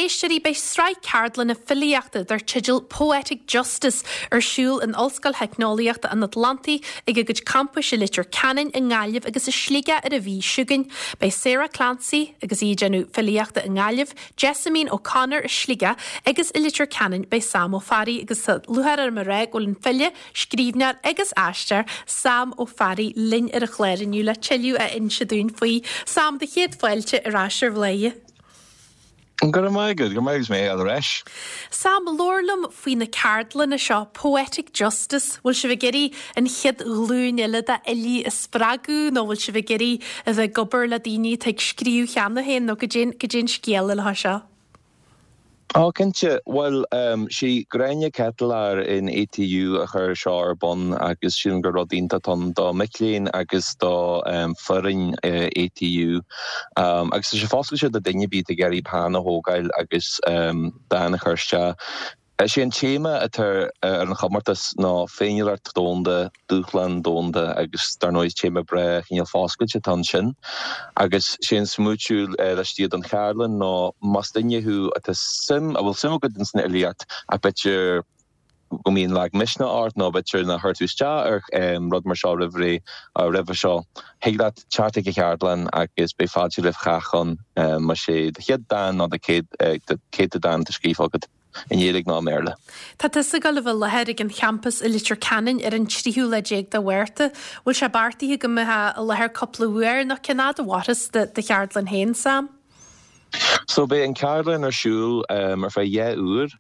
éisteoirí, beidh sraith ceardlanna filíochta dar teideal Poetic Justice ar siúl in Ollscoil Theicneolaíochta an Atlantaigh ag a gcuid campais i Leitir Ceanainn, i nGaillimh agus i Sligeach ar an mhí seo chugainn. Beidh Sarah Clancy agus í ag déanamh filíochta i nGaillimh, Jessamine O'Connor i Sligeach agus i Leitir Ceanainn beidh Sam Ó Fearraigh agus tá lúcháir orm a rá go bhfuil an file, scríbhneoir agus aisteoir Sam Ó Fearraigh linn ar an chlár inniu le tuilleadh a inse dúinn faoi. Sam, do chéad fáilte ar ais ar Bhladhaire. Go raibh maith agat, go raibh maith agat, is mé ar ais. Sam, labhair liom faoi na ceardlanna seo, Poetic Justice, bhfuil sibh ag iarraidh an chéad ghlúin eile d'fhilí a spreagadh nó bhfuil sibh ag iarraidh a bheith ag obair le daoine atá ag scríobh cheana féin nó goidé an scéal le seo? Ó, cinnte. Bhuel, sí Gráinne Ketelaar in ATU a chuir seo ar bun agus sílim gur rud iontach atá ann do mic léinn agus do foireann ATU. Agus tá sé foscailte do duine ar bith atá ag iarraidh peann a thógáil agus dán a chur isteach. Is é an téama atá ar an chomórtas ná Féiniúlacht Dhomhanda, Dúshlán Domhanda agus dar ndóigh is téama breá cineál foscailte atá ansin. Agus sé an smaoitiú laistigh den cheardlann ná más duine thú atá suim, a bhfuil suim agat ins an fhilíocht ach b'fhéidir go mbíonn lag misneach ort nó b'fhéidir nár chuir tú isteach ar rud mar seo roimh ré, roimhe seo, thig leat teacht ag an cheardlann agus beidh fáilte roimh chách ann más é do chéad dán nó do chéad dán atá scríofa agat. i nGaeilge nó i mBéarla. Tá tusa ag dul a bheith i láthair ag an champas i Leitir Ceanainn ar an tríú lá déag de Mhárta. Bhfuil sé beartaithe go mbeifeá i láthair cúpla uair nó cén fhad a mhairfeas do cheardlann féin, Sam? So beidh an ceardlann ar siúl ar feadh 2 uair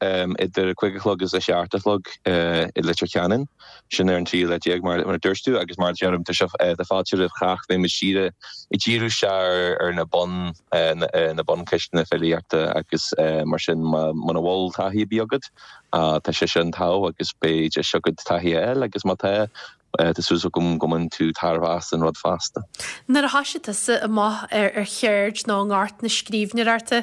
idir a 5 a chlog agus a 7 a chlog i Leitir Ceanainn. Sin ar an tríú lá déag mar a dúirt tú agus mar a deirim tá sé tá fáilte roimh chách. Beidh muid dírithe ag díriú isteach ar na bun na buncheisteanna filíochta agus mar sin muna bhfuil taithí ar bith agat tá sé sin togha agus beidh deis agat taithí a fháil agus má tá tá súil agam go mbainfidh tú tairbhe as an rud fosta. Nuair a thoisigh tusa amach ar cheird nó i ngort na scríbhneoireachta,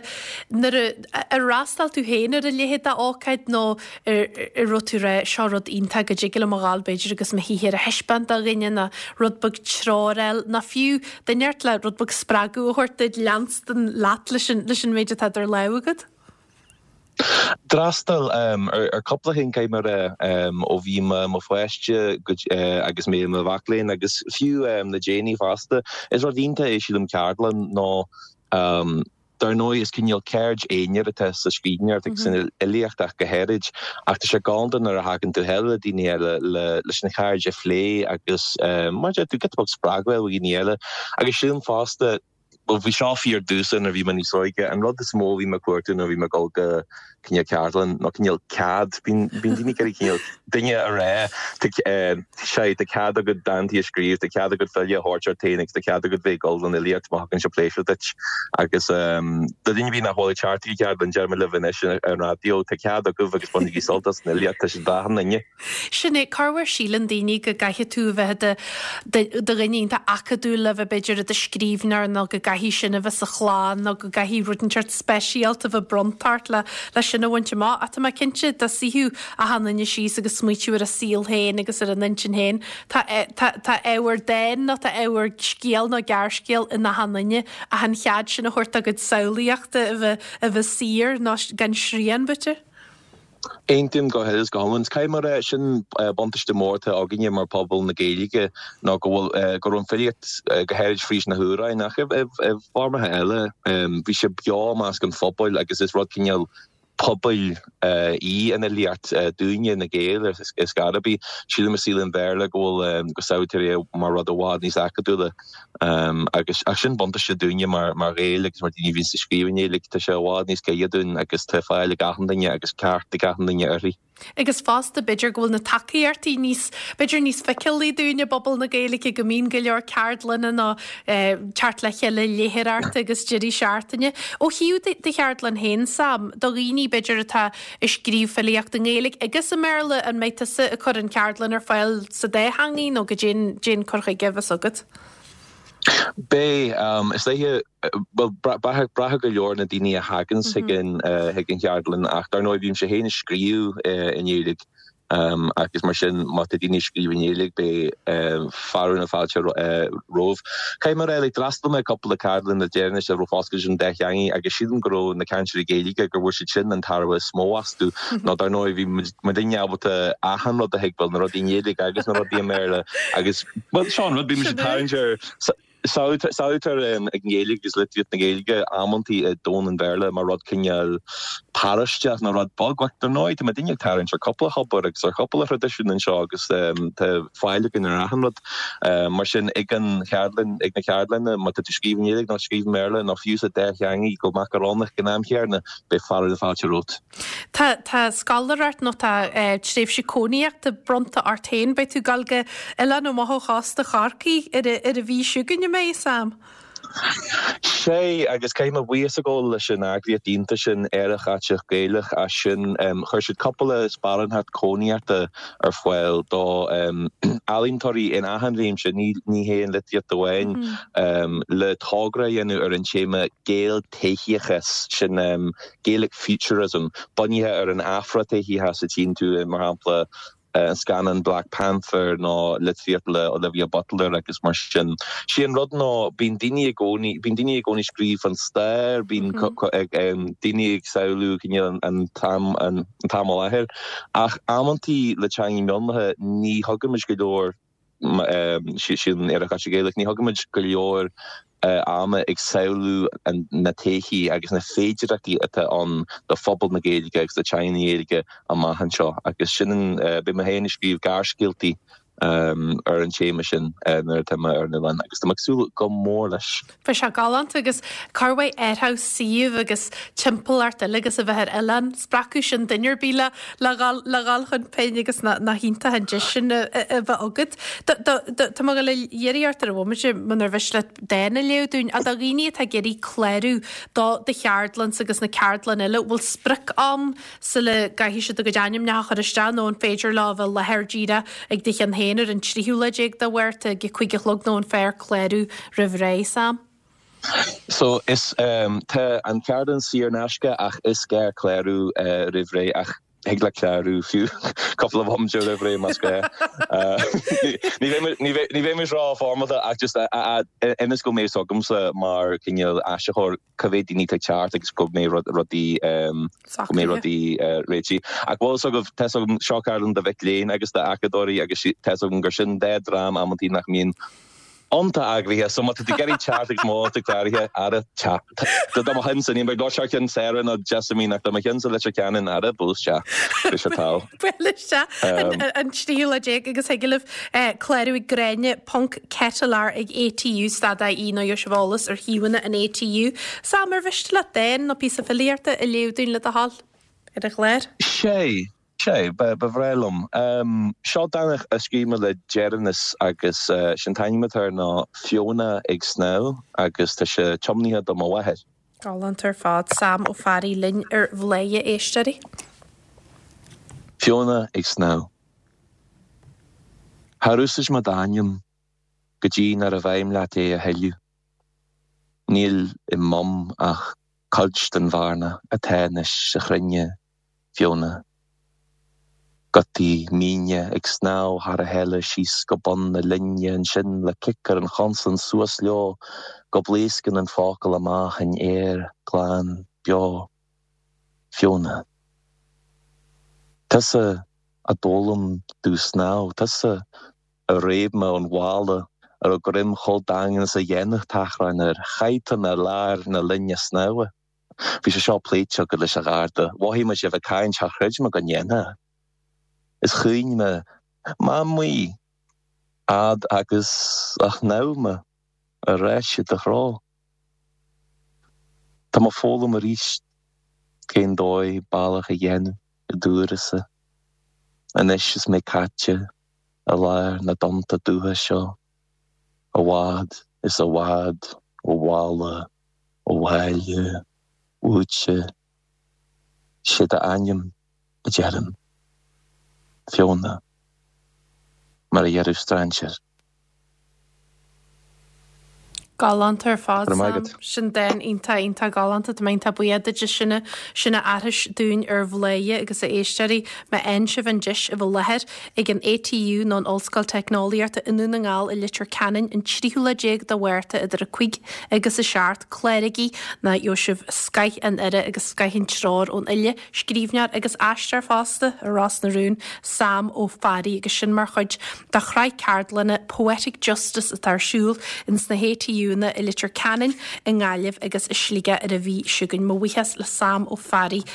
nuair a ar fhreastail tú féin ar a leithéid d'ócáid nó Ar raibh tú ag rá, seo rud iontach go dtig liom a dhul b'fhéidir agus mo shaothar a thaispeáint do dhuine nó rud beag treoir a fháil nó fiú duine inteacht le rud beag spreagadh a thabhairt duit leanstan leat leis an leis an méid atá idir lámha agat? D'fhreastail ar cúpla cheann caithfidh mé a rá ó bhí mé i mo pháiste go agus mé i mo mhac léinn agus fiú le déanaí fosta. Is rud iontach é sílim ceardlann nó Dar ndóigh, is cineál ceird aonair atá sa scríbhneoireacht agus san fhilíocht ach go háirid, ach tá sé galánta nuair a thagann tú le daoine eile leis an cheird a phlé agus mar a deir tú, giota beag spreagadh a fháil ó dhaoine eile. Agus sílim fosta, bhuel bhí seo fíor domhsa nuair a bhí mé níos óige, an rud is mó a bhí mé ag cuartú nuair a bhí mé ag dul go cineál ceardlann nó cineál cead, bíonn daoine ag iarraidh cineál duine a rá tá sé tá cead agat dántaí a scríobh, tá cead agat file a thabhairt ort féin agus tá cead agat bheith ag dul don fhilíocht má thugann sé pléisiúr duit. Agus do dhuine ar bith nach bhfuil ag teacht chuig ceardlann, deirim libh anois ar an raidió, tá cead agaibh agus bainigí sult as an fhilíocht, tá sé d'achan duine. Sin é, corruair síleann daoine go gcaithfidh tú a bheith i do dhuine iontach acadúil le bheith b'fhéidir i do scríbhneoir nó go gcaithfidh sin a bheith sa chlann nó go gcaithfidh rud inteacht speisialta a bheith bronnta ort le le sin a bhaint amach. Ach tá mé cinnte dá suífeadh achan duine síos agus smaoitiú ar a saol féin agus ar a n-intinn féin, tá tá tá ábhar dáin nó tá ábhar scéal nó gearrscéal in achan duine ach an chead sin a thabhairt dá gcuid samhlaíochta a bheith a bheith saor nó gan srian b'fhéidir. Aontaím go huile is go hiomlán. Caithfidh mé a rá, sin buntáiste mór atá againne mar phobal na Gaeilge ná go bhfuil, go raibh an filíocht, go háirid fríd na hamhráin ach i bhfoirmeacha eile, bhí sé beo i measc an phobail agus is rud cineál pobail í an fhilíocht dúinne, na Gaeil, ar scor ar bith. Sílim i saol an Bhéarla go bhfuil, go samhlaítear é mar rud i bhfad níos acadúla. Agus ach sin buntáiste dúinne mar mar Ghaeil agus mar daoine a bhíonns ag scríobh i nGaeilge, tá sé i bhfad níos gaire dúinn agus tá fáil ag achan duine agus ceart ag achan duine uirthi. Agus fosta b'fhéidir go bhfuil na tacaíochtaí níos, b'fhéidir níos feiceálaí dúinn i bpobal na Gaeilge, go mbíonn go leor ceardlanna nó teacht le chéile léitheoireachta agus deirí seachtaine. Ó thaobh do cheardlann féin, Sam, do dhaoine b'fhéidir atá ag scríobh filíocht i nGaeilge agus i mBéarla, an mbeidh tusa ag cur an cheardlann ar fáil sa dá theangaidh nó goidé an cur chuige a bheas agat? Beidh. Is dóiche, bhuel, braithfidh go leor na daoine a thaganns chuig an chuig an cheardlann ach dar ndóigh bímse féin ag scríobh i nGaeilge. Agus mar sin, má tá daoine ag scríobh i nGaeilge, beidh fearadh na fáilte romhaibh. Caithfidh mé a rá, like, d'fhreastail mé ar cúpla ceardlann le deireanas a raibh foscailte don dá theangaidh agus sílim go raibh na cainteoirí Gaeilge, gur bhain siad sin an tairbhe is mó astu. Nó dar ndóigh, bhí muidinne ábalta achan rud a thuigbheáil, na rudaí i nGaeilge agus na rudaí i mBéarla agus, bhuel, seo an rud, bíonn muid ag tarraingt ar. Samhlaítear an Ghaeilge agus litríocht na Gaeilge amantaí i domhan an Bhéarla mar rud cineál paróisteach nó rud beag. Ach dar ndóigh, tá muidinne ag tarraingt ar cúpla thobar agus ar chúpla thraidisiún anseo agus tá fáil againn ar achan rud. Mar sin, ag an cheardlann, ag na ceardlanna, má tá tú ag scríobh i nGaeilge nó ag scríobh i mBéarla nó fiú sa dá theangaidh go macarónach ag an am chéanna, beidh fearadh na fáilte romhat. Tá tá scoláireacht nó tá tréimhse cónaíochta bronnta ort féin. Beidh tú ag dul go oileán amach ó chósta Chorcaí ar an mhí seo chugainn, an mbeidh, Sam? Sea, agus caithfidh mé buíochas a ghabháil leis an eagraíocht iontach sin, Aerach Aiteach Gaelach, as sin. Chuir siad cúpla sparántacht cónaíochta ar fáil do ealaíontóirí in achan réimse, ní hé an litríocht amháin, le togra a dhéanamh ar an téama Gael-todhchaíochas, sin Gaelic Futurism, bunaithe ar an Afra-todhchaíochas a tchíonn tú i, mar shampla, an scannán Black Panther nó litríocht le Olivia Butler agus mar sin. Sé an rud ná bíonn daoine i gcónaí, bíonn daoine i gcónaí ag scríobh fán stair, bíonn daoine ag samhlú cineál an t-am, an t-am i láthair ach amantaí le teangaí mionlaithe ní thugann muid go leor sin Aerach Aiteach Gaelach. Ní thugaimid go leor ama ag samhlú na todhchaí agus na féidearthachtaí atá ann do phobal na Gaeilge agus do teanga na Gaeilge amach anseo agus sin an, beidh mé féin ag scríobh gearrscéaltaí ar an téama sin nuair atá mé ar an oileán agus tá mé ag súil go mór leis. Bheadh sé galánta agus corrmhaith ar thaobh suíomh agus timpeallacht uilig agus a bheith ar oileán. Spreagfadh sin duine ar bith le le dhul le dhul chun pinn agus nach iontach an deis sin a bheith agat. Tá mé ag dul a iarraidh ort ar an bhomaite munar mhiste leat dán a léamh dúinn. Ach do dhaoine atá ag iarraidh clárú do do cheardlannsa agus na ceardlanna eile, bhfuil sprioc-am sula gcaithfidh siad a gcuid ainmneacha a chur isteach nó an féidir leo a bheith i láthair díreach ag do cheann féin ar an tríú lá déag de Mhárta ag a 5 a chlog nó an fearr clárú roimh ré, Sam? So is tá an ceardlann saor in aisce ach is gá clárú roimh ré ach thig leat clárú fiú cúpla bomaite roimh ré más gá. Ní bheidh muid ró-fhoirmeálta ach just ionas go mbeidh fhios agamsa mar cineál áisitheoir cá mhéad daoine atá ag teacht agus go mbeidh rudaí go mbeidh rudaí réitithe. Ach bhfuil fhios agaibh, tá fhios agam, seo ceardlann do mhic léinn agus d'acadóirí agus tá fhios agam gur sin dá dream amantaí nach mbíonn iontach eagraithe so má tá tú ag iarraidh teacht agus má tá tú cláraithe, ara teacht. Do mo cheannsa, níl mé ag labhairt thar ceann Sarah nó Jessamine ach do mo cheannsa Leitir Ceanainn, ara buail isteach. Beidh sé togha. Buail isteach an tríú lá déag agus thig libh clárú ag Gráinne ponc Ketelaar ag ATU stad IE nó gheobhaidh sibh eolas ar shuíomhanna an ATU. Sam, ar mhiste leat dán nó píosa filíochta a léamh dúinn le do thoil ar an chlár? Sé, sé, ba bhreá liom. Seo dán a scríobh mé le deireanas agus sé'n t-ainm atá air ná Fiona ag Snámh agus tá sé tiomnaithe do mo mháthair. Galánta ar fad. Sam Ó Fearraigh linn ar Bhladhaire, a éisteoirí. Fiona ag snámh. Char úsáid mé d'ainm go dtí nárbh fheidhm leat é a thuilleadh. Níl i Mum ach cuid den bhearna atá anois sa chruinne, Fiona. Gutaí míne ag snámh thar a chéile síos go bun na linne ansin le cic ar an chonsan suas leo go bpléascann an focal amach in aer glan beo. Fiona. Tusa a d'fhoghlaim domh snámh, tusa a réab mé ón bhalla a raibh greim chomh daingean is a dhéanfadh tachrán air. Chaith tú mé i lár na linne snámha. Bhí sé seo pléite agat leis an gharda. Mhothaigh mé sibh ag caint, char chreid mé go ndéanfá. Is chaoin mé, Mamaí! Fhad agus a shnámh mé ar ais i do threo. Tá mé ag foghlaim arís cén dóigh bealach a dhéanamh i d'uireasa, anois is mé caite i lár na dtonnta dubha seo, i bhfad is i bhfad ó bhaile, ó bhaile, uaitse. Sé d'ainm a deirim. Fiona. Mar a déarfadh strainséir. Galánta ar fad, Sam. Sin dán iontach, iontach galánta. Tá mé iontach buíoch duit as sin a, sin a aithris dúinn ar Bhladhaire agus a éisteoirí. Má fhaigheann sibh an deis a bheith i láthair ag an ATU nó an Ollscoil Teicneolaíochta i nDún na nGall i Leitir Ceanainn an tríú lá déag de Mhárta idir 5 agus 7, cláraigí nó gheobhaidh sibh scoith an aire agus scoith an treoir ón fhile, scríbhneoir agus aisteoir fosta i Ros na Rún, Sam Ó Fearraigh agus sin mar chuid de shraith ceardlanna Poetic Justice atá ar siúl ins na hATUanna i Leitir Ceanainn, i nGaillimh agus i Sligeach ar an mhí seo chugainn. Mo bhuíochas le Sam Ó Fearraigh.